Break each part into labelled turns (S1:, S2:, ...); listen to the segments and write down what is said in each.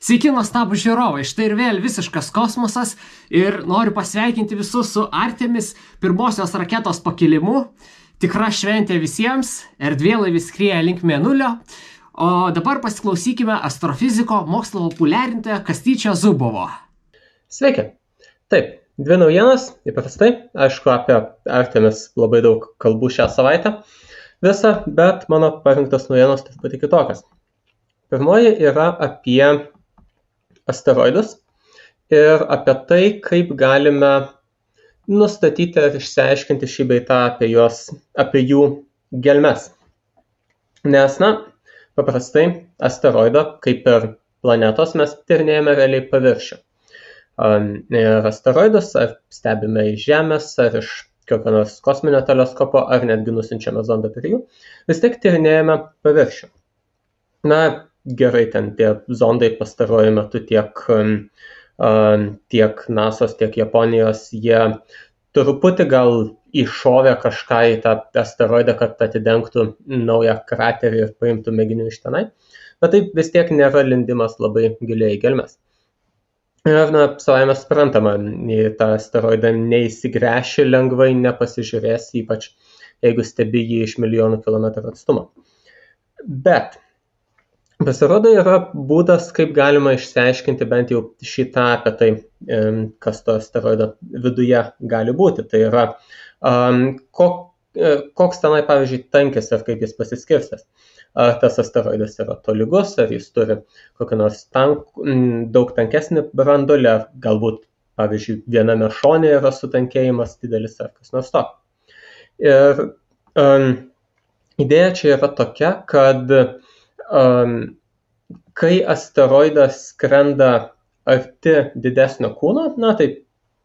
S1: Sveiki, nuostabūs žiūrovai, štai ir vėl visiškas kosmosas ir noriu pasveikinti visus su Artemis pirmosios raketos pakilimu. Tikra šventė visiems, erdvėlaivis skrieja link Mėnulio. O dabar pasiklausykime astrofiziko mokslo populiarintojo Kastyčio Zubovo.
S2: Sveiki. Taip, dvi naujienos, įprastai. Aišku, apie Artemis labai daug kalbų šią savaitę visą, bet mano parinktos naujienos truputį kitokios. Pirmoji yra apie asteroidus ir apie tai, kaip galime nustatyti ir išsiaiškinti šį bei tą apie jų gelmes. Nes, paprastai asteroido, kaip ir planetos, mes tyrinėjame realiai paviršių. Ir asteroidus ar stebime iš Žemės, ar iš kokio nors kosminio teleskopo, ar netgi nusiunčiame zondą prie jų, vis tiek tyrinėjame paviršių. Gerai, ten tie zondai pastaruoju metu tiek NASO's, tiek Japonijos, jie truputį gal iššovė kažką į tą asteroidą, kad atidengtų naują kraterį ir paimtų mėginių iš tenai, bet tai vis tiek nėra lindimas labai giliai į gelmes. Ir, savaime suprantama, į tą asteroidą neįsigręši lengvai, nepasižiūrės, ypač jeigu stebi jį iš milijonų kilometrų atstumo. Bet pasirodo yra būdas, kaip galima išsiaiškinti bent jau šitą apie tai, kas to asteroido viduje gali būti. Tai yra, koks tenai, pavyzdžiui, tankis ir kaip jis pasiskirstęs. Ar tas asteroidas yra tolygus, ar jis turi kokį nors daug tankesnį branduolį, ar galbūt, pavyzdžiui, viename šone yra sutankėjimas didelis ar kas nors to. Ir idėja čia yra tokia, kad kai asteroidas skrenda arti didesnio kūno, tai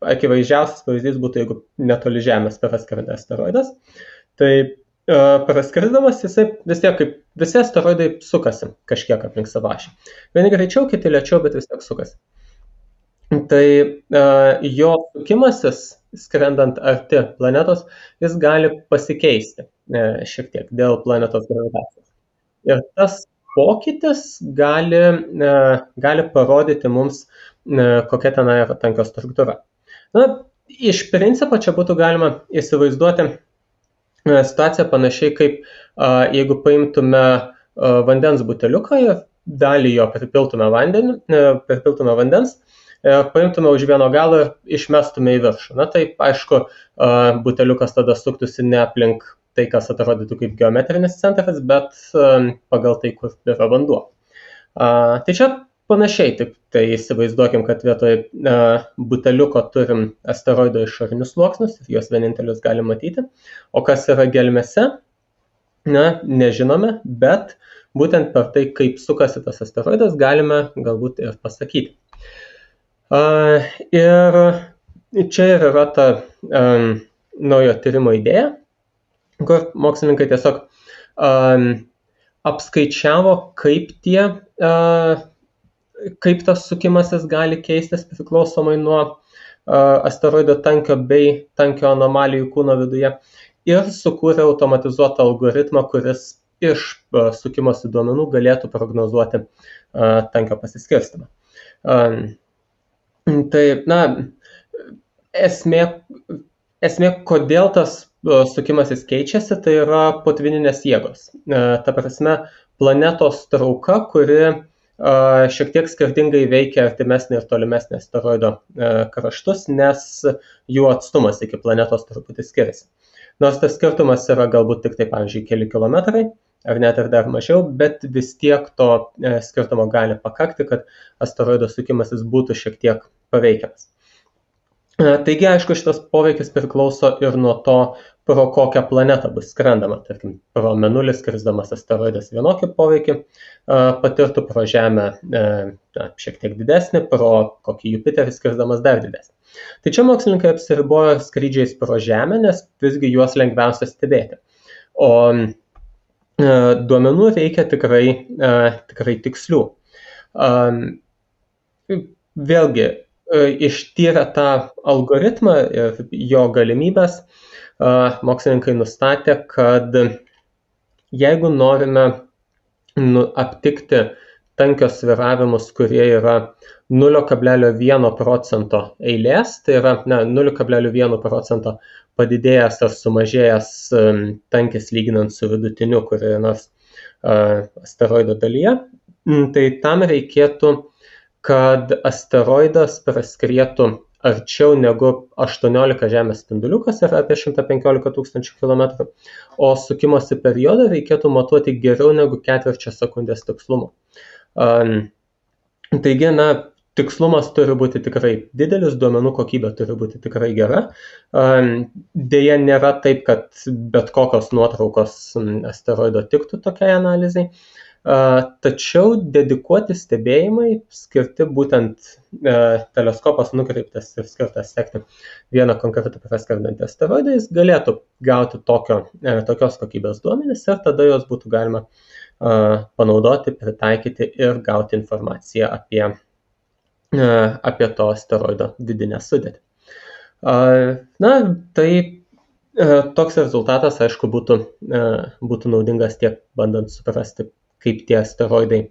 S2: akivaizdžiausias pavyzdys būtų, jeigu netoli Žemės praskrenda asteroidas, tai praskrisdamas jisai vis tiek, kaip visi asteroidai, sukasi kažkiek aplink savo ašį. Vieni greičiau, kiti lėčiau, bet vis tiek sukasi. Tai jo sukimasis, skrendant arti planetos, jis gali pasikeisti šiek tiek dėl planetos gravitacijos. Ir tas pokytis gali parodyti mums, kokia ten yra tankio struktūra. Iš principo čia būtų galima įsivaizduoti situaciją panašiai kaip jeigu paimtume vandens buteliuką ir dalį jo pripiltume vandens, paimtume už vieno galo ir išmestume į viršų. Tai aišku, buteliukas tada suktųsi ne aplink tai, kas atrodytų kaip geometrinis centras, bet pagal tai, kur yra vanduo. Tai čia panašiai, tik tai įsivaizduokim, kad vietoj buteliuko turim asteroido išorinius sluoksnius ir juos vienintelius galim matyti. O kas yra gelmėse, nežinome, bet būtent per tai, kaip sukasi tas asteroidas, galime galbūt ir pasakyti. Ir čia yra ta naujo tyrimo idėja, kur mokslininkai tiesiog apskaičiavo, kaip tas sukimasis gali keistis priklausomai nuo asteroido tankio bei tankio anomalijų kūno viduje ir sukūrė automatizuotą algoritmą, kuris iš sukimosi duomenų galėtų prognozuoti tankio pasiskirstymą. Tai, esmė, kodėl tas sukimasis keičiasi, tai yra potvyninės jėgos. Ta prasme, planetos trauka, kuri šiek tiek skirtingai veikia artimesnį ir tolimesnį asteroido kraštus, nes jų atstumas iki planetos truputį skiriasi. Nors tas skirtumas yra galbūt tik tai, pavyzdžiui, keli kilometrai, ar net ir dar mažiau, bet vis tiek to skirtumo gali pakakti, kad asteroido sukimasis būtų šiek tiek paveikiamas. Taigi, aišku, šitas poveikis priklauso ir nuo to, pro kokią planetą bus skrendama. Tarkim, pro Mėnulį skrisdamas asteroidas vienokį poveikį patirtų, pro Žemę šiek tiek didesnį, pro kokį Jupiterį skrisdamas dar didesnį. Tai čia mokslininkai apsiribojo skrydžiais pro Žemę, nes visgi juos lengviausia stebėti. O duomenų reikia tikrai tikslių. Vėlgi, ištyrę tą algoritmą ir jo galimybės, mokslininkai nustatė, kad jeigu norime aptikti tankios sviravimus, kurie yra 0,1% eilės, tai yra 0,1% padidėjęs ar sumažėjęs tankis lyginant su vidutiniu kurioje nors asteroido dalyje, tai tam reikėtų, kad asteroidas praskrietų arčiau negu 18 Žemės spindulių, kas yra apie 115 000 km, o sukimosi periodą reikėtų matuoti geriau negu ketvirčio sekundės tikslumu. Taigi, tikslumas turi būti tikrai didelis, duomenų kokybė turi būti tikrai gera. Deja, nėra taip, kad bet kokios nuotraukos asteroido tiktų tokiai analizai. Tačiau dedikuoti stebėjimai skirti būtent teleskopas nukreiptas ir skirtas sekti vieną konkretų praskrendantį asteroidą, jis galėtų gauti tokios kokybės duomenis ir tada jos būtų galima panaudoti, pritaikyti ir gauti informaciją apie to asteroido vidinę sudėtį. Tai toks rezultatas, aišku, būtų naudingas tiek bandant suprasti, kaip tie asteroidai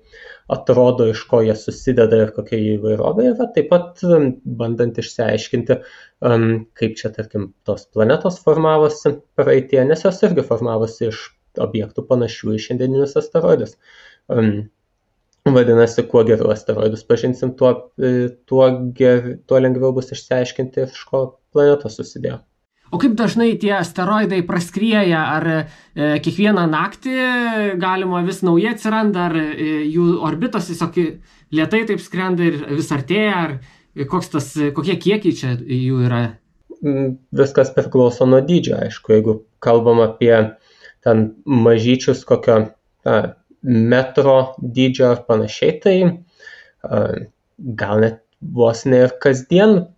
S2: atrodo, iš ko jie susideda ir kokia jų įvairovė yra, taip pat bandant išsiaiškinti, kaip čia, tarkim, tos planetos formavosi praeitie, nes jos irgi formavosi iš objektų panašių į šiandieninius asteroidus. Vadinasi, kuo geriau asteroidus pažinsim, tuo lengviau bus išsiaiškinti, iš ko planetos susidėjo.
S1: O kaip dažnai tie asteroidai praskrieja, ar kiekvieną naktį galima vis naujai atsiranda, ar jų orbitos tiesiog lėtai taip skrenda ir vis artėja, ar kokie kiekiai čia jų yra?
S2: Viskas priklauso nuo dydžio, aišku, jeigu kalbam apie ten mažyčius kokio metro dydžio ar panašiai, tai gal net vos ne ir kasdien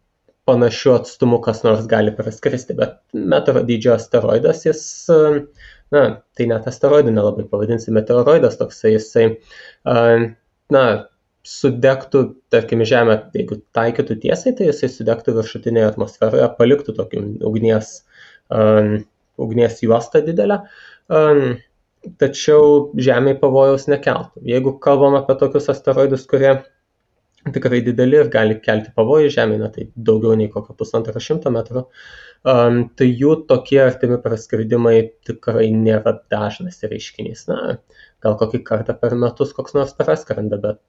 S2: panašių atstumų kas nors gali praskristi, bet metro dydžio asteroidas, tai net asteroidų nelabai pavadinsi, meteoroidas toksai, jisai, sudegtų, tarkim, Žemę, jeigu taikytų tiesiai, tai jisai sudegtų viršutinėje atmosferoje, paliktų tokį ugnies juostą didelę, tačiau Žemėje pavojaus nekeltų. Jeigu kalbam apie tokius asteroidus, kurie tikrai dideli ir gali kelti pavojų Žemėje, tai daugiau nei kokio 150 metrų, tai jų tokie artimi praskridimai tikrai nėra dažnas reiškinys. Gal kokį kartą per metus koks nors praskrenda, bet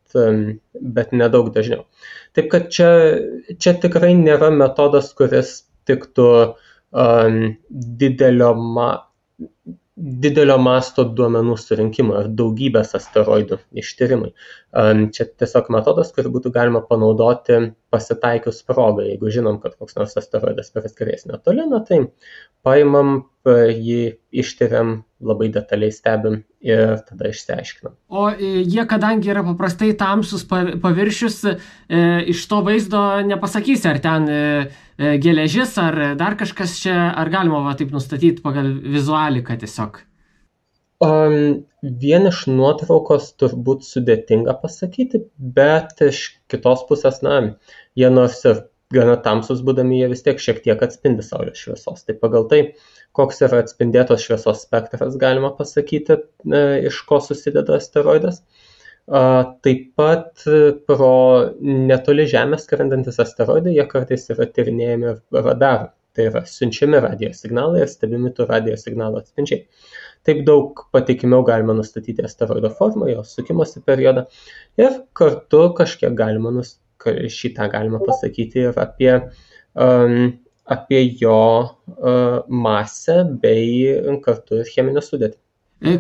S2: nedaug dažniau. Taip kad čia tikrai nėra metodas, kuris tiktų didelio masto duomenų surinkimo ir daugybės asteroidų ištyrimai. Čia tiesiog metodas, kurį būtų galima panaudoti pasitaikius progą. Jeigu žinom, kad koks nors asteroidas praskries netoli, tai paimam jį, ištyriam, labai detaliai stebim ir tada išsiaiškinam.
S1: O jie, kadangi yra paprastai tamsus paviršius, iš to vaizdo nepasakysi, ar ten geležis, ar dar kažkas čia, ar galima taip nustatyti pagal vizualiką tiesiog?
S2: Vien iš nuotraukos turbūt sudėtinga pasakyti, bet iš kitos pusės, jie nors ir gana tamsus būdami, jie vis tiek šiek tiek atspindi saulės šviesos. Tai pagal tai, koks yra atspindėtos šviesos spektras, galima pasakyti, iš ko susideda asteroidas. Taip pat pro netoli Žemės skrendantis asteroidai, jie kartais yra tyrinėjami radarų. Tai yra siunčiami radio signalai ir stebimi tų radio signalų atspindžiai. Taip daug patikimiau galima nustatyti asteroido formą, jo sukimosi periodą ir kartu kažkiek šitą galima pasakyti ir apie jo masę bei kartu ir cheminę sudėtį.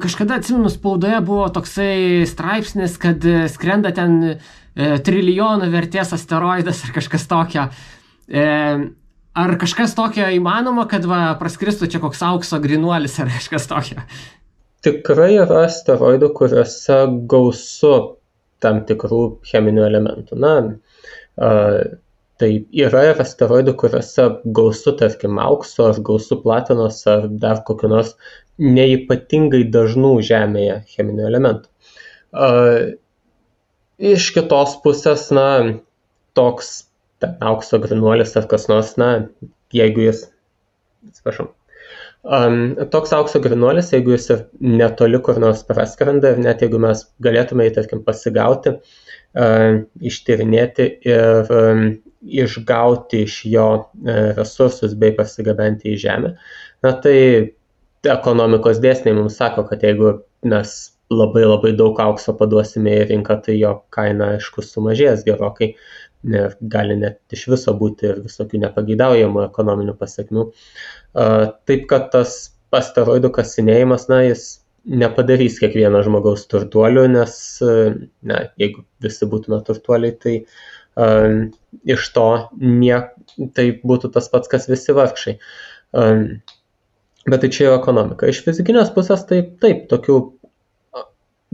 S1: Kažkada, atsimenu, spaudoje buvo toksai straipsnis, kad skrenda ten trilijonų vertės asteroidas ar kažkas tokio. Ar kažkas tokio įmanoma, kad praskristų čia koks aukso grynuolis ar kažkas tokio?
S2: Tikrai yra asteroidų, kuriuose gausu tam tikrų cheminių elementų. Tai yra ir asteroidų, kuriuose gausu, tarkim, aukso, ar gausu platinos, ar dar kokiu nors neypatingai dažnų Žemėje cheminių elementų. Iš kitos pusės, toks aukso grynuolis ar kas nors, jeigu jis, Toks aukso grynuolis, jeigu jis ir netoli kur nors praskrenda ir net jeigu mes galėtume jį, tarkim, pasigauti, ištyrinėti ir išgauti iš jo resursus bei pasigabenti į žemę, na tai ekonomikos dėsniai mums sako, kad jeigu mes labai daug aukso paduosime į rinką, tai jo kaina, aišku, sumažės gerokai. Gali net iš viso būti ir visokių nepageidaujamų ekonominių pasekmių. Taip, kad tas asteroidų kasinėjimas, jis nepadarys kiekvieno žmogaus turtuoliu, nes jeigu visi būtume turtuoliai, tai iš to tai būtų tas pats, kas visi vargšai. Bet tai čia jau ekonomika. Iš fizikinės pusės tai taip, tokių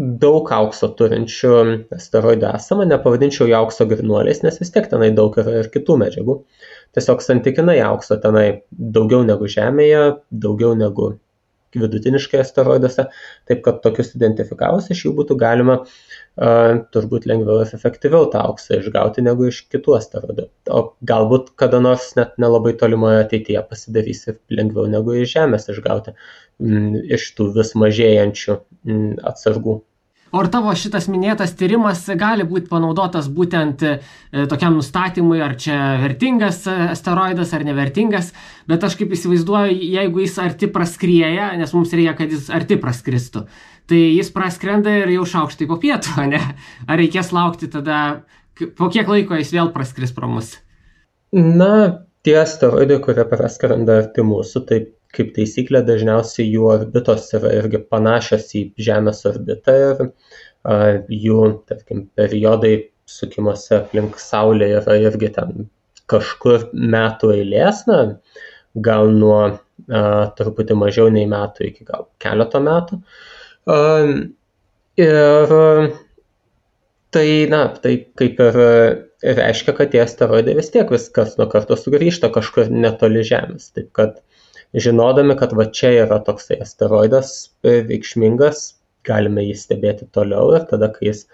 S2: daug aukso turinčių asteroidų esama, nepavadinčiau jų aukso grynuoliais, nes vis tiek tenai daug yra ir kitų medžiagų. Tiesiog santykinai aukso tenai daugiau negu Žemėje, daugiau negu vidutiniškai asteroiduose, taip kad tokius identifikavus iš jų būtų galima turbūt lengviau ir efektyviau tą auksą išgauti negu iš kitų asteroidų. O galbūt kada nors net nelabai tolimoje ateityje pasidarys ir lengviau negu iš Žemės išgauti iš tų vis mažėjančių atsargų.
S1: O ar tavo šitas minėtas tyrimas gali būti panaudotas būtent tokiam nustatymui, ar čia vertingas asteroidas ar nevertingas, bet aš kaip įsivaizduoju, jeigu jis arti praskrieja, nes mums reikia, kad jis arti praskristų, tai jis praskrenda ir jau šaukštai po pietų, ne? Ar reikės laukti tada, po kiek laiko jis vėl praskris pro mus?
S2: Na, tie asteroidai, kurie praskrenda arti mūsų, tai kaip taisyklė dažniausiai jų orbitos yra irgi panašios į Žemės orbitą ir jų, tarkim, periodai sukimuose aplink Saulę yra irgi ten kažkur metų eilės, gal nuo truputį mažiau nei metų iki gal keleto metų. Ir tai kaip ir reiškia, kad tie asteroidai vis tiek viskas nuo karto sugrįžta kažkur netoli Žemės. Taip kad žinodami, kad va čia yra toksai asteroidas reikšmingas, galime jį stebėti toliau ir tada, kai jis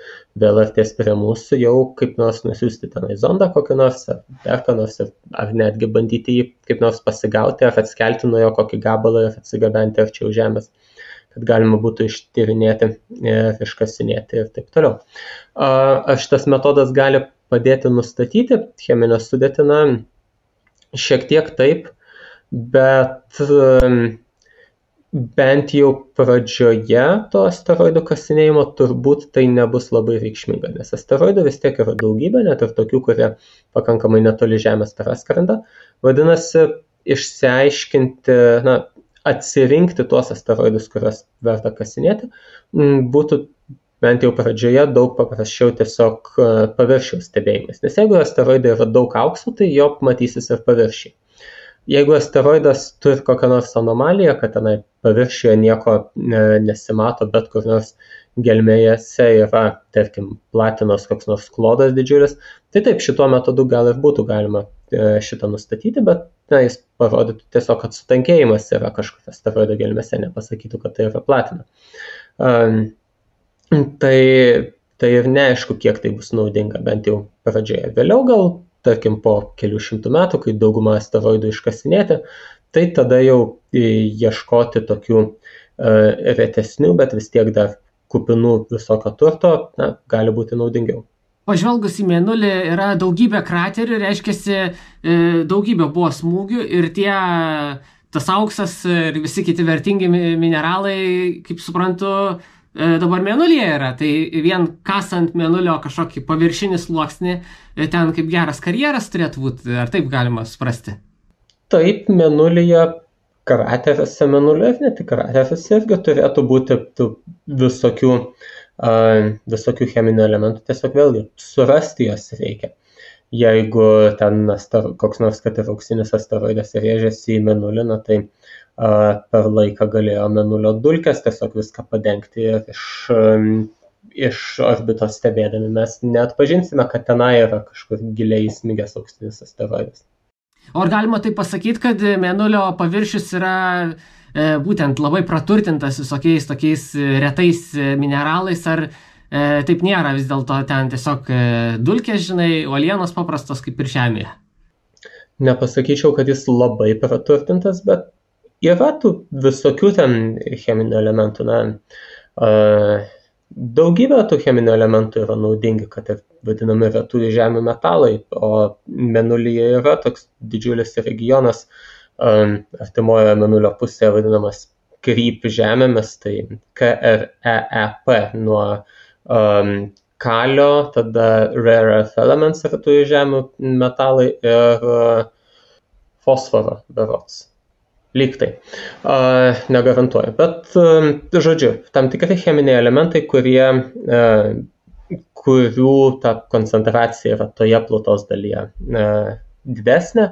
S2: vėl artės prie mūsų, jau kaip nors nusiųsti tenai zondą kokį nors, ar dar ką nors, ar netgi bandyti jį kaip nors pasigauti, ar atskelti nuo jo kokį gabalą ir atsigabenti arčiau Žemės, kad galima būtų ištyrinėti ir iškasinėti ir taip toliau. Ar šitas metodas gali padėti nustatyti cheminę sudėtį? Šiek tiek taip, bet bent jau pradžioje to asteroidų kasinėjimo turbūt tai nebus labai reikšminga, nes asteroidų vis tiek yra daugybė, net ir tokių, kurie pakankamai netoli Žemės praskrenda. Vadinasi, išsiaiškinti, atsirinkti tuos asteroidus, kuriuos verta kasinėti, būtų bent jau pradžioje daug paprasčiau tiesiog paviršiaus stebėjimais. Nes jeigu asteroidai yra daug aukso, tai jo matysis ir paviršiai. Jeigu asteroidas turi kokią nors anomaliją, kad tenai paviršiuje nieko nesimato, bet kur nors gelmėse yra, tarkim, platinos koks nors klodas didžiulis, tai taip, šituo metodu gal ir būtų galima šitą nustatyti, bet jis parodytų tiesiog, kad sutankėjimas yra kažkur asteroido gelmėse, nepasakytų, kad tai yra platina. Tai ir neaišku, kiek tai bus naudinga, bent jau pradžioje. Vėliau gal, tarkim, po kelių šimtų metų, kai daugumą asteroidų iškasinėti, tai tada jau ieškoti tokių retesnių, bet vis tiek dar kupinų visokio turto, gali būti naudingiau.
S1: Pažvelgus į Mėnulį yra daugybė kraterių, reiškiasi daugybė buvo smūgių ir tas auksas ir visi kiti vertingi mineralai, kaip suprantu, dabar Mėnulyje yra, tai vien kasant Mėnulio kažkokį paviršinį sluoksnį, ten kaip geras karjeras turėtų būti, ar taip galima suprasti?
S2: Taip, Mėnulyje, krateriuose Mėnulio ir ne tik krateriuose irgi turėtų būti visokių cheminių elementų, tiesiog vėlgi surasti jos reikia. Jeigu ten koks nors, kad ir auksinis asteroidas rėžėsi į Mėnulį, tai per laiką galėjo Mėnulio dulkės tiesiog viską padengti ir iš orbitos stebėdami mes neatpažinsime, kad tenai yra kažkur giliai įsmigęs auksinis asteroidas.
S1: O ar galima tai pasakyti, kad Mėnulio paviršius yra būtent labai praturtintas visokiais tokiais retais mineralais, ar taip nėra vis dėlto ten tiesiog dulkės, uolienos paprastos kaip ir Žemėje?
S2: Nepasakyčiau, kad jis labai praturtintas, bet yra tų visokių ten cheminių elementų, daugybė tų cheminių elementų yra naudingi, kad ir vadinami retųjų žemių metalai, o Mėnulyje yra toks didžiulis regionas artimoje Mėnulio pusėje vadinamas Kryp žemėmis, tai KREEP nuo kalio, tada rare earth elements retųjų žemių metalai ir fosforo berods. Lyg tai. Negarantuoju. Bet, žodžiu, tam tikri cheminiai elementai, kurių ta koncentracija yra toje plutos dalyje didesnė.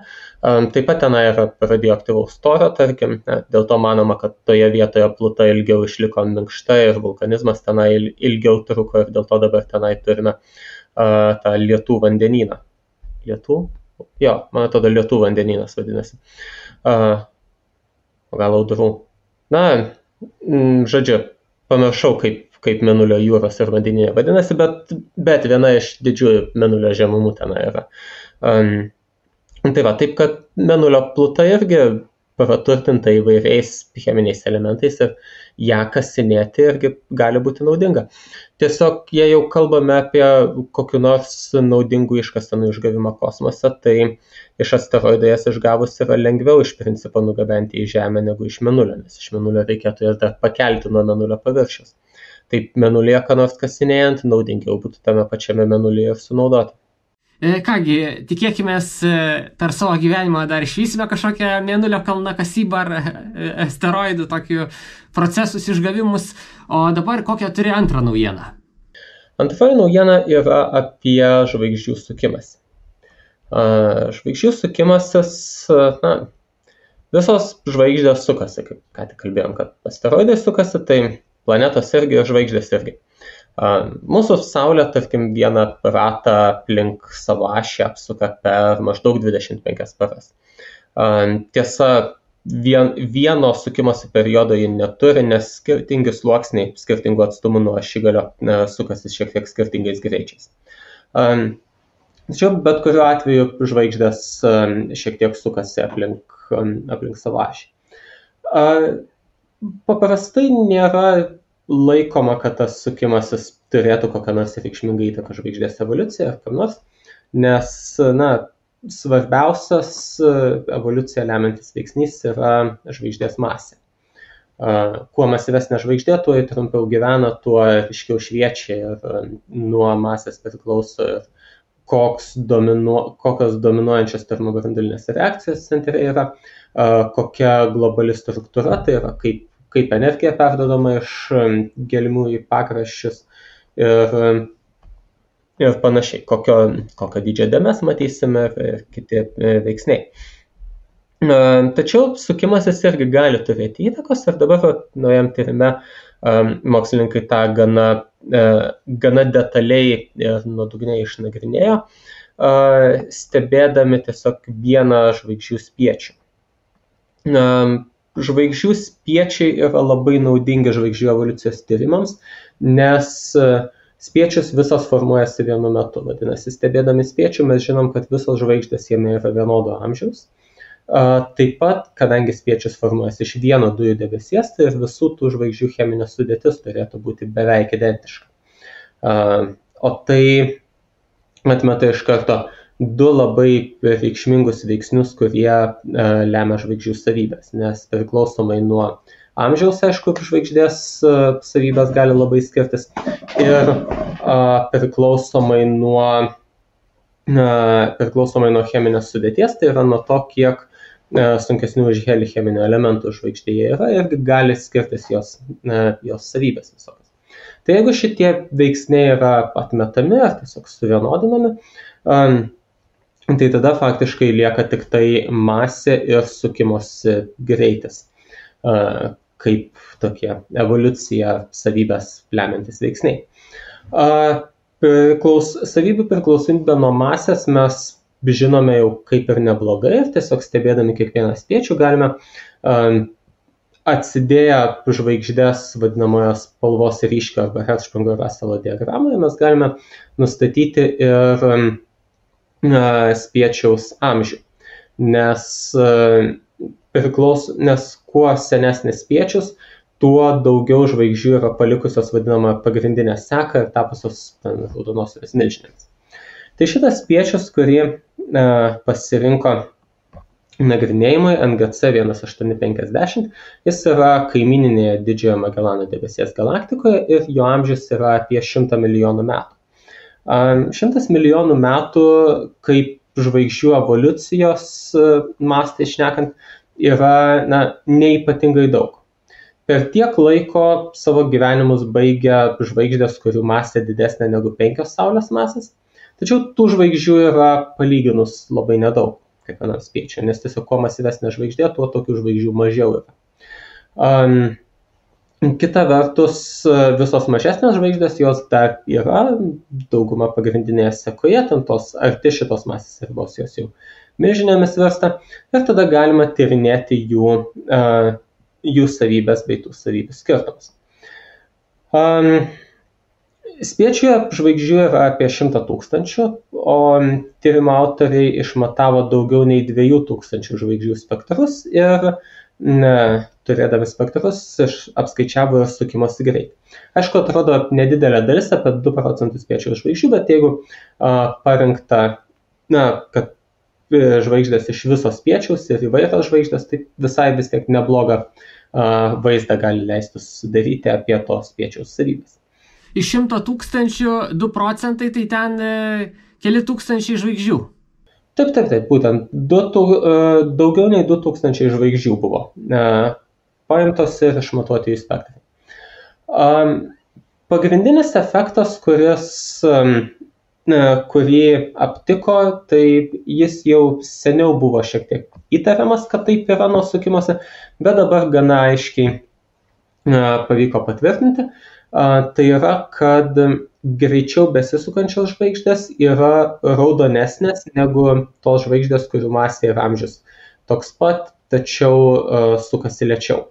S2: Taip pat tenai yra radioaktyvaus torio, tarkim, dėl to manoma, kad toje vietoje pluta ilgiau išliko minkšta ir vulkanizmas tenai ilgiau truko ir dėl to dabar tenai turime tą lietų vandenyną. Lietų? Jo, man atrodo, lietų vandenynas vadinasi. Gal audrų. Žodžiu, pamiršau, kaip Mėnulio jūros ir vandenyje vadinasi, bet viena iš didžiųjų Mėnulio žemumų tenai yra. Tai va, taip kad Mėnulio pluta irgi praturtinta įvairiais cheminiais elementais ir ją kasinėti irgi gali būti naudinga. Tiesiog, jei jau kalbame apie kokiu nors naudingų iškasenų išgavimą kosmose, tai iš asteroido jas išgavus yra lengviau iš principo nugabenti į Žemę negu iš Mėnulio, nes iš Mėnulio reikėtų jas dar pakelti nuo Mėnulio paviršiaus. Taip Mėnulyje ką nors kasinėjant, naudingiau būtų tame pačiame Mėnulyje ir sunaudoti.
S1: Kągi, tikėkimės per savo gyvenimą dar išvysime kažkokią Mėnulio kalnakasybą ar asteroidų tokių procesus išgavimus. O dabar kokią turi antrą naujieną?
S2: Antroji naujiena yra apie žvaigždžių sukimąsi. Žvaigždžių sukimasis, visos žvaigždės sukasi, kaip ką tik kalbėjom, kad asteroidai sukasi, tai planetos irgi ir žvaigždės irgi. Mūsų Saulė, tarkim, vieną ratą aplink savo ašį apsuka per maždaug 25 paras. Tiesa, vieno sukimosi periodo ji neturi, nes skirtingi sluoksniai skirtingų atstumų nuo ašigalio sukasi šiek tiek skirtingais greičiais. Tačiau bet kuriuo atveju žvaigždės šiek tiek sukasi aplink savo ašį. Paprastai nėra laikoma, kad tas sukimasis turėtų kokią nors reikšmingą įtaką žvaigždės evoliuciją ar kam nors, nes svarbiausias evoliuciją lemiantis veiksnys yra žvaigždės masė. Kuo masyvesnė žvaigždė, tuo trumpiau gyvena, tuo ryškiau šviečia ir nuo masės priklauso ir kokios dominuojančios termobranduolinės reakcijos centre yra, kokia globali struktūra, tai yra kaip energija perdodama iš gelmių į pakraščius ir panašiai, kokio dydžio dėmes matysime ir kiti veiksniai. Tačiau sukimasis irgi gali turėti įtakos ir dabar naujam tyrime mokslininkai tą gana detaliai ir nuodugniai išnagrinėjo, stebėdami tiesiog vieną žvaigždžių spiečių. Žvaigždžių spiečiai yra labai naudingi žvaigždžių evoliucijos tyrimams, nes spiečius visos formuojasi vienu metu. Vadinasi, stebėdami spiečių mes žinom, kad visos žvaigždės jame yra vienodo amžiaus. Taip pat, kadangi spiečius formuojasi iš vieno dujų debesies, tai ir visų tų žvaigždžių cheminė sudėtis turėtų būti beveik identiška. O tai atmeta iš karto du labai reikšmingus veiksnius, kurie lemia žvaigždžių savybės, nes priklausomai nuo amžiaus, aišku, žvaigždės savybės gali labai skirtis ir priklausomai nuo cheminės sudėties, tai yra nuo to, kiek sunkesnių už helį cheminių elementų žvaigždėje yra ir gali skirtis jos savybės visokios. Tai jeigu šitie veiksniai yra atmetami ar tiesiog suvienodinami, tai tada faktiškai lieka tik tai masė ir sukimosi greitis, kaip tokie evoliucija savybės lemiantis veiksniai. Savybių priklausomybę nuo masės mes žinome jau kaip ir neblogai ir tiesiog stebėdami kiekvieną spiečių galime atsidėję žvaigždės vadinamoje spalvos ryškio arba Hertzsprung-Russell diagramoje mes galime nustatyti ir spiečiaus amžių, nes priklauso, nes kuo senesnis spiečius, tuo daugiau žvaigždžių yra palikusios vadinamą pagrindinę seką ir tapusios raudonosiomis milžinėmis. Tai šitas spiečius, kurį pasirinko nagrinėjimui NGC 1850, jis yra kaimininėje Didžiojo Magelano debesies galaktikoje ir jo amžius yra apie 100 milijonų metų. 100 milijonų metų, kaip žvaigždžių evoliucijos mastai šnekant, yra neypatingai daug. Per tiek laiko savo gyvenimus baigia žvaigždės, kurių masė didesnė negu 5 Saulės masės, tačiau tų žvaigždžių yra palyginus labai nedaug kiekvienam spiečiui, nes tiesiog kuo masyvesnė žvaigždė, tuo tokių žvaigždžių mažiau yra. Kita vertus, visos mažesnės žvaigždės, jos dar yra, dauguma pagrindinėje sekoje, ten tos arti šitos masės ribos jos jau milžinėmis virsta, ir tada galima tyrinėti jų savybės bei tų savybių skirtumus. Spiečiuje žvaigždžių yra apie 100 000, o tyrimo autoriai išmatavo daugiau nei 2000 žvaigždžių spektrus ir turėdami spektrus apskaičiavo ir sukimosi greitį. Aišku, atrodo nedidelė dalis, apie 2% spiečiaus žvaigždžių, bet jeigu parinkta, kad žvaigždės iš viso spiečiaus ir įvairios žvaigždės, tai visai vis tiek neblogą vaizdą gali leisti sudaryti apie to spiečiaus savybės.
S1: Iš 100 000 2%, tai ten keli tūkstančiai žvaigždžių.
S2: Taip, būtent daugiau nei 2000 žvaigždžių buvo paimtos ir išmatuoti jų spektrai. Pagrindinis efektas, kurį aptiko, tai jis jau seniau buvo šiek tiek įtariamas, kad taip yra nuo sukimosi, bet dabar gana aiškiai pavyko patvirtinti. Tai yra, kad greičiau besisukančios žvaigždės yra raudonesnės negu tos žvaigždės, kurių masė ir amžius toks pat, tačiau sukasi lėčiau.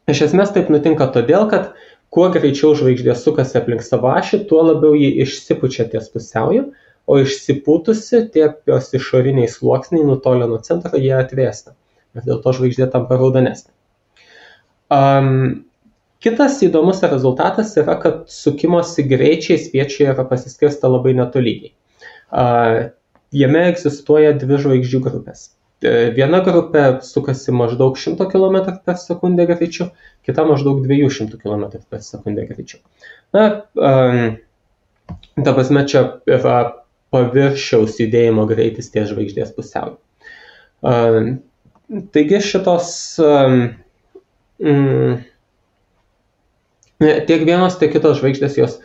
S2: Iš esmės taip nutinka todėl, kad kuo greičiau žvaigždė sukasi aplink savo ašį, tuo labiau ji išsipučia ties pusiauju, o išsipūtusi tie jos išoriniai sluoksniai nutolę nuo centro, jie atvėsta. Ir dėl to žvaigždė tampa raudonesnė. Kitas įdomus rezultatas yra, kad sukimosi greičiai spiečiuje yra pasiskirsta labai netolygiai. Jame egzistuoja dvi žvaigždžių grupės. Viena grupė sukasi maždaug 100 km per sekundę greičiu, kita maždaug 200 km per sekundę greičiu. Ta prasme, čia yra paviršiaus judėjimo greitis ties žvaigždės pusiauju. Taigi šitos tiek vienos, tiek kitos žvaigždės jos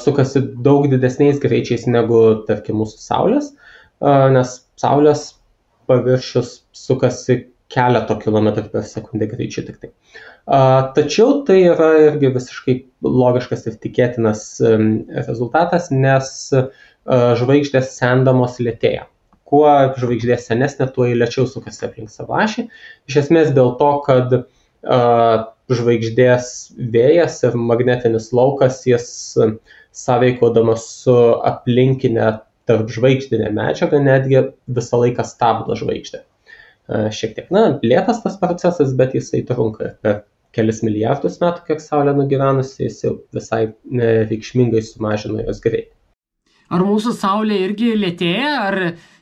S2: sukasi daug didesniais greičiais negu, tarkim, mūsų Saulės, nes Saulės paviršius sukasi keleto kilometrų per sekundę greičiu tik tai. Tačiau tai yra irgi visiškai logiškas ir tikėtinas rezultatas, nes žvaigždės sendamos lėtėja. Kuo žvaigždė senesnė, tuo jį lėčiau sukasi aplink savo ašį. Iš esmės dėl to, kad žvaigždės vėjas ir magnetinis laukas, jis sąveikaudamas su aplinkinė tarp žvaigždinė medžiaga netgi visą laiką stabdo žvaigždę. Šiek tiek, lėtas tas procesas, bet jisai trunka per kelis milijardus metų, kiek Saulė nugyvenusi, jis jau visai reikšmingai sumažino jos greitį.
S1: Ar mūsų Saulė irgi lėtėja, ar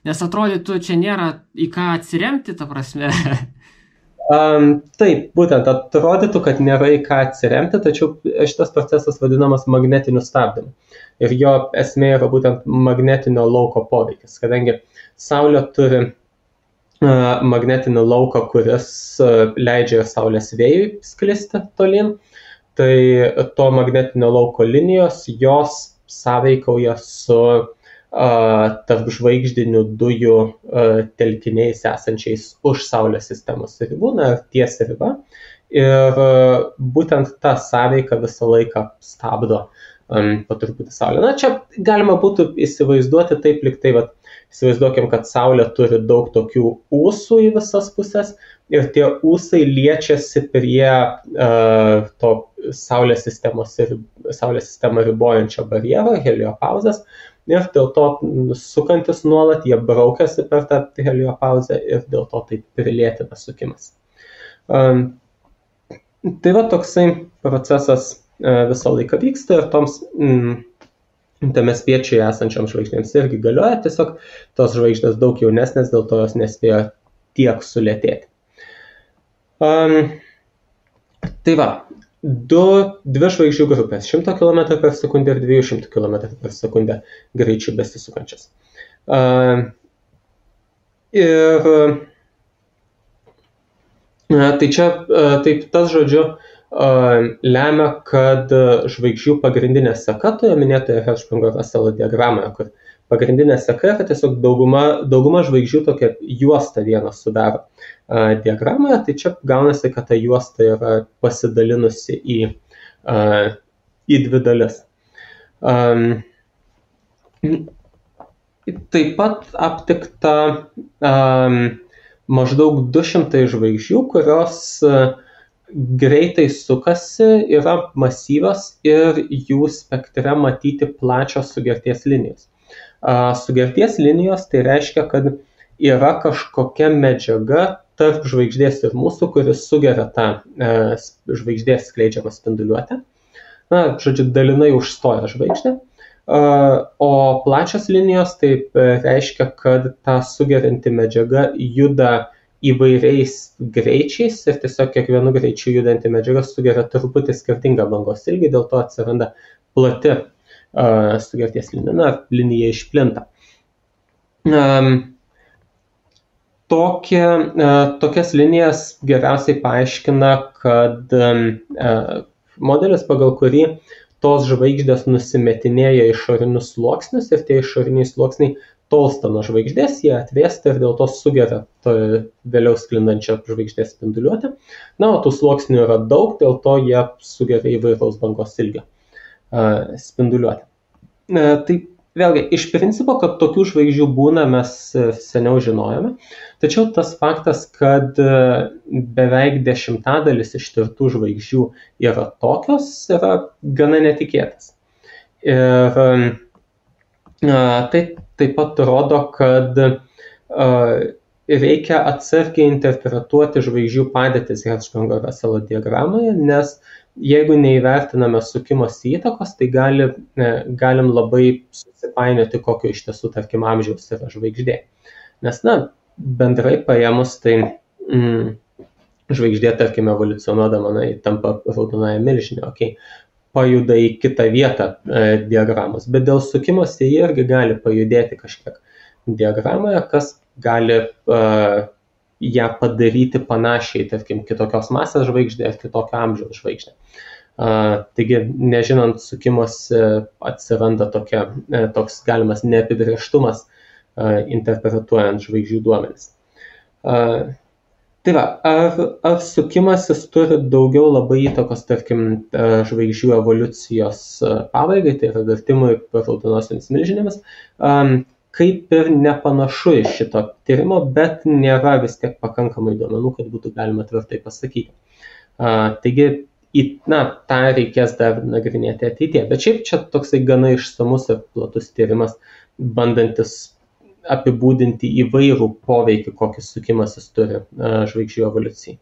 S1: nes atrodytų, čia nėra į ką atsiremti, ta prasme?
S2: Taip, būtent atrodytų, kad nėra į ką atsiremti, tačiau šitas procesas vadinamas magnetiniu stabdymu. Ir jo esmė yra būtent magnetinio lauko poveikis, kadangi Saulė turi magnetinį lauką, kuris leidžia Saulės vėjui sklisti tolyn, tai to magnetinio lauko linijos, jos sąveikauja su tarp žvaigždinių dujų telkiniais esančiais už Saulės sistemos ribų, ties riba. Ir būtent ta sąveika visą laiką stabdo po truputį Saulę. Na, čia galima būtų įsivaizduoti taip, lyg tai, įsivaizduokim, kad Saulė turi daug tokių ūsų į visas pusės ir tie ūsai liečiasi prie to Saulės sistemą ribojančio barjero, heliopauzės, ir dėl to sukantis nuolat, jie braukiasi per tą heliopauzę ir dėl to taip prilėtina sukimas. Tai toksai procesas visą laiką vyksta ir toms tame spiečiuje esančiam žvaigždėms irgi galioja, tiesiog tos žvaigždės daug jaunesnės, dėl to jos nespėjo tiek sulėtėti. Tai dvi žvaigždžių grupės 100 km per sekundę ir 200 km per sekundę greičiu besisukančias. Ir tai čia, taip tas žodžiu, lemia, kad žvaigždžių pagrindinė seka toje minėtoje Hertzsprung-Russell diagramoje, kur pagrindinė seka yra tiesiog dauguma žvaigždžių tokia juosta vieną sudaro diagramoje, tai čia gaunasi, kad ta juosta yra pasidalinusi į dvi dalis. Taip pat aptikta maždaug 200 žvaigždžių, kurios greitai sukasi, yra masyvios ir jų spektre matyti plačios sugerties linijos. Sugerties linijos tai reiškia, kad yra kažkokia medžiaga tarp žvaigždės ir mūsų, kuris sugeria tą žvaigždės skleidžiamą spinduliuotę. Žodžiu, dalinai užstoja žvaigždę. O plačios linijos tai reiškia, kad ta sugerianti medžiaga juda įvairiais greičiais ir tiesiog kiekvienu greičiu judanti medžiaga sugeria truputį skirtingą bangos ilgį, dėl to atsiranda plati sugerties linija, linija išplinta. Tokias linijas geriausiai paaiškina, kad modelis, pagal kurį tos žvaigždės nusimetinėja išorinius sluoksnius ir tie išoriniai sluoksniai tolsta nuo žvaigždės, jie atvėsta ir dėl to sugeria vėliau sklindančią žvaigždės spinduliuotę. O tų sluoksnių yra daug, dėl to jie sugeria įvairaus bangos ilgio spinduliuotę. Tai vėlgi, iš principo, kad tokių žvaigždžių būna, mes seniau žinojome, tačiau tas faktas, kad beveik 10% ištirtų žvaigždžių yra tokios, yra gana netikėtas. Ir tai taip pat rodo, kad reikia atsargiai interpretuoti žvaigždžių padėtis Hertzsprung-Russell diagramoje, nes jeigu neįvertiname sukimosi įtakos, tai galim labai susipainioti, kokio iš tiesų, tarkim, amžiaus yra žvaigždė. Nes, bendrai paėmus, tai žvaigždė, tarkim, evoliucionuodama, tampa raudonąja milžinė, pajuda į kitą vietą diagramos, bet dėl sukimosi jie irgi gali pajudėti kažkiek diagramoje, kas gali ją padaryti panašiai, tarkim, kitokios masės žvaigždė ar kitokio amžiaus žvaigždė. Taigi, nežinant sukimosi, atsiranda toks galimas neapibrėžtumas interpretuojant žvaigždžių duomenis. Tai ar sukimasis turi daugiau labai įtakos, tarkim, žvaigždžių evoliucijos pabaigai, tai yra virtimui raudonosiomis milžinėmis, kaip ir nepanašu iš šito tyrimo, bet nėra vis tiek pakankamai duomenų, kad būtų galima tvirtai pasakyti. Taigi, tą reikės dar nagrinėti ateityje, bet šiaip čia toksai gana išsamus ir platus tyrimas, bandantis apibūdinti įvairų poveikį, kokį sukimasis turi žvaigždžių evoliucijai.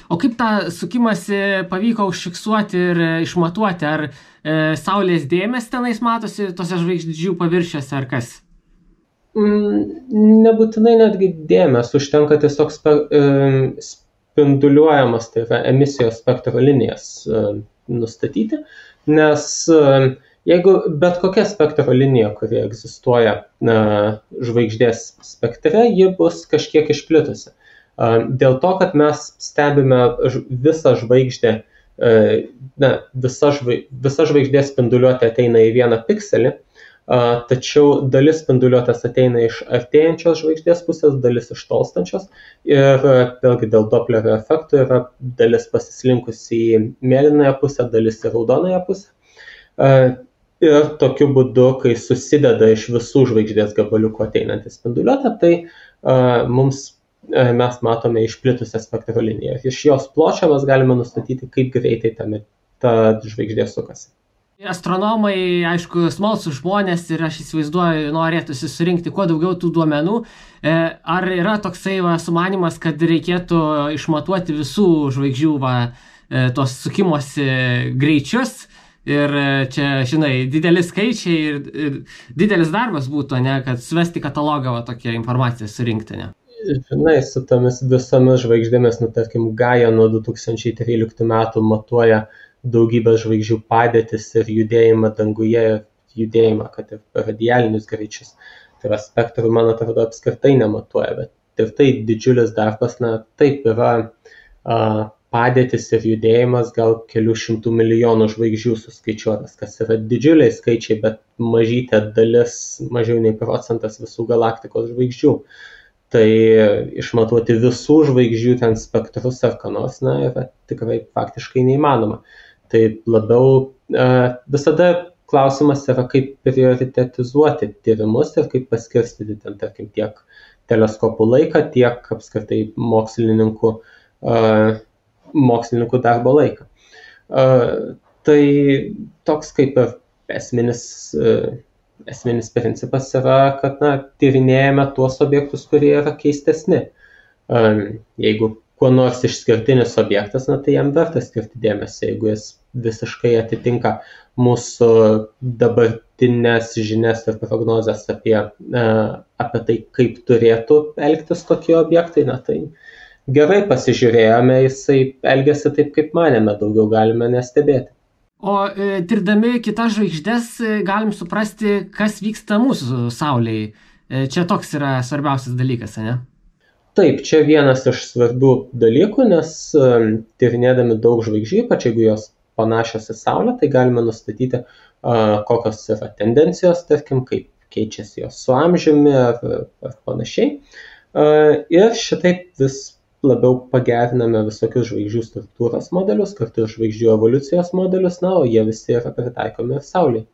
S1: O kaip tą sukimąsi pavyko užfiksuoti ir išmatuoti? Ar Saulės dėmės tenais matosi tose žvaigždžių paviršiuose ar kas?
S2: Nebūtinai netgi dėmės, užtenka tiesiog spinduliuojamas, tai yra emisijos spektro linijas nustatyti, nes jeigu bet kokia spektro linija, kuri egzistuoja žvaigždės spektre, ji bus kažkiek išplitusi. Dėl to, kad mes stebime visą žvaigždę, visa žvaigždės spinduliuotė ateina į vieną pikselį, tačiau dalis spinduliuotės ateina iš artėjančios žvaigždės pusės, dalis iš tolstančios ir vėlgi dėl Doplerio efekto yra dalis pasislinkusi į mėlynąją pusę, dalis į raudonąją pusę. Ir tokiu būdu, kai susideda iš visų žvaigždės gabaliukų ateinantį spinduliuotę, tai mes matome išplitusią spektro liniją. Iš jos pločio mes galime nustatyti, kaip greitai ta žvaigždė sukasi.
S1: Astronomai, aišku, smalsūs žmonės ir aš įsivaizduoju, norėtųsi surinkti kuo daugiau tų duomenų. Ar yra toksai sumanymas, kad reikėtų išmatuoti visų žvaigždžių tos sukimosi greičius? Ir čia, žinai, dideli skaičiai ir didelis darbas būtų, ne, kad suvesti katalogą tokią informaciją surinkti, ne?
S2: Žinai, su tomis visomis žvaigždėmis, tarkim, Gaia nuo 2013 metų matuoja daugybę žvaigždžių padėtis ir judėjimą danguje, judėjimą, kad ir radialinius greičius. Tai yra spektrų, man atrodo, apskritai nematuoja, bet ir tai didžiulis darbas, taip yra padėtis ir judėjimas gal kelių šimtų milijonų žvaigždžių suskaičiuotas, kas yra didžiuliai skaičiai, bet mažytė dalis, mažiau nei procentas visų galaktikos žvaigždžių. Tai išmatuoti visų žvaigždžių ten spektrus ar ką nors, yra tikrai faktiškai neįmanoma. Tai labiau visada klausimas yra, kaip prioritetizuoti tyrimus ir kaip paskirstyti ten, tarkim, tiek teleskopų laiką, tiek apskritai mokslininkų darbo laiką. Tai toks kaip ir esminis principas yra, kad tyrinėjame tuos objektus, kurie yra keistesni. Jeigu kuo nors išskirtinis objektas, tai jam verta skirti dėmesį, jeigu jis visiškai atitinka mūsų dabartinės žinias ir prognozes apie tai, kaip turėtų elgtis tokie objektai, tai gerai pasižiūrėjome, jisai elgiasi taip, kaip manėme, daugiau galime nestebėti.
S1: O tirdami kitas žvaigždės galim suprasti, kas vyksta mūsų Saulėje. Čia toks yra svarbiausias dalykas, ne?
S2: Taip, čia vienas iš svarbių dalykų, nes tyrinėdami daug žvaigždžių, ypač jeigu jos panašios į Saulę, tai galime nustatyti, kokios yra tendencijos, tarkim, kaip keičiasi jos su amžiumi ar panašiai. Ir šitaip vis labiau pageriname visokius žvaigždžių struktūros modelius, kartu ir žvaigždžių evoliucijos modelius, o jie visi yra pritaikomi ir Saulėje.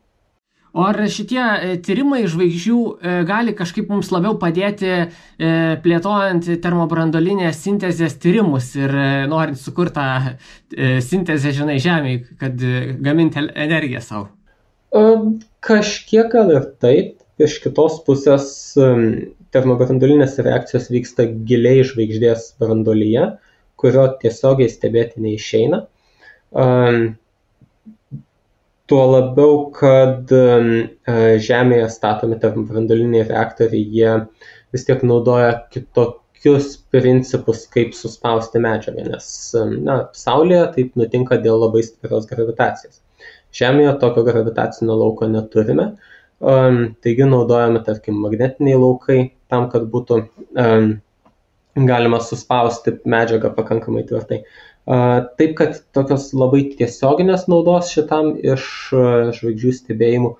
S1: O ar šitie tyrimai žvaigždžių gali kažkaip mums labiau padėti plėtojant termobranduolinės sintezės tyrimus ir norint sukurtą sintezę, Žemėje, kad gaminti energiją savo?
S2: Kažkiek gal ir taip. Iš kitos pusės termobranduolinės reakcijos vyksta giliai žvaigždės branduolyje, kurio tiesiogiai stebėti neišeina. Tuo labiau, kad Žemėje statomi termobranduoliniai reaktoriai, jie vis tiek naudoja kitokius principus, kaip suspausti medžiagą, nes Saulėje taip nutinka dėl labai stiprios gravitacijos. Žemėje tokio gravitacinio lauko neturime, taigi naudojame, tarkim, magnetiniai laukai tam, kad būtų galima suspausti medžiagą pakankamai tvirtai. Taip, kad tokios labai tiesioginės naudos šitam iš žvaigždžių stebėjimų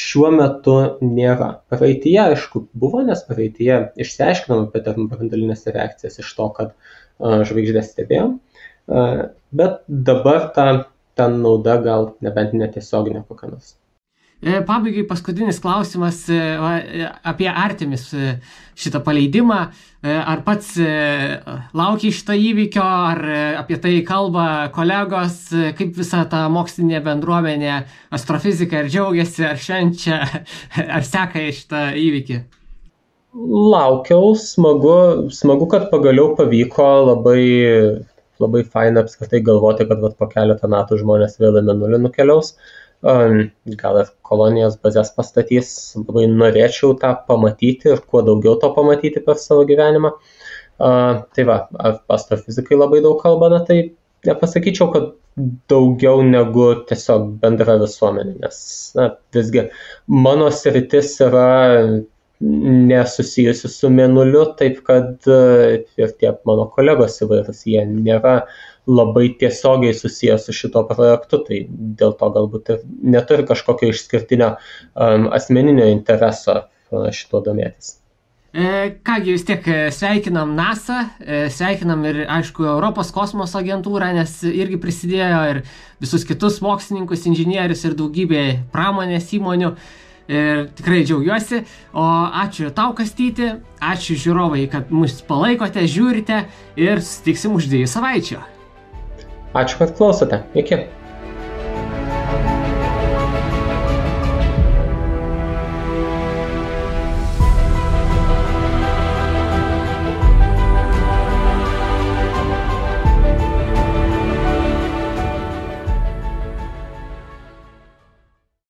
S2: šiuo metu nėra. Praeityje, aišku, buvo, nes praeityje išsiaiškinome apie termobranduolinės reakcijas iš to, kad žvaigždės stebėjom, bet dabar ta nauda gal nebent netiesioginė kokia nors.
S1: Pabaigai paskutinis klausimas apie Artemis šitą paleidimą. Ar pats laukia šito įvykio, ar apie tai kalba kolegos, kaip visa ta mokslinė bendruomenė, astrofizika, ar džiaugiasi, ar švenčia, ar seka šitą įvykį?
S2: Laukiau, smagu, kad pagaliau pavyko, labai faina apskritai galvoti, kad po keletą metų žmonės vėl į Mėnulį nukeliaus. Gal ir kolonijos bazės pastatys, labai norėčiau tą pamatyti ir kuo daugiau to pamatyti per savo gyvenimą. Tai astrofizikai labai daug kalba, tai nepasakyčiau, kad daugiau negu tiesiog bendra visuomenė, nes visgi mano sritis yra nesusijusi su Mėnuliu, taip kad ir tie mano kolegos įvairūs, jie nėra labai tiesiogiai susijęs su šito projektu, tai dėl to galbūt ir neturi kažkokio išskirtinio asmeninio intereso šito domėtis.
S1: Kągi vis tiek sveikinam NASA, sveikinam ir, aišku, Europos kosmoso agentūrą, nes irgi prisidėjo ir visus kitus mokslininkus, inžinierius ir daugybė pramonės įmonių. Ir tikrai džiaugiuosi. O ačiū tau, Kastyti, ačiū žiūrovai, kad mus palaikote, žiūrite ir susitiksim už 2 savaičių.
S2: Ačiū, kad klausote. Iki.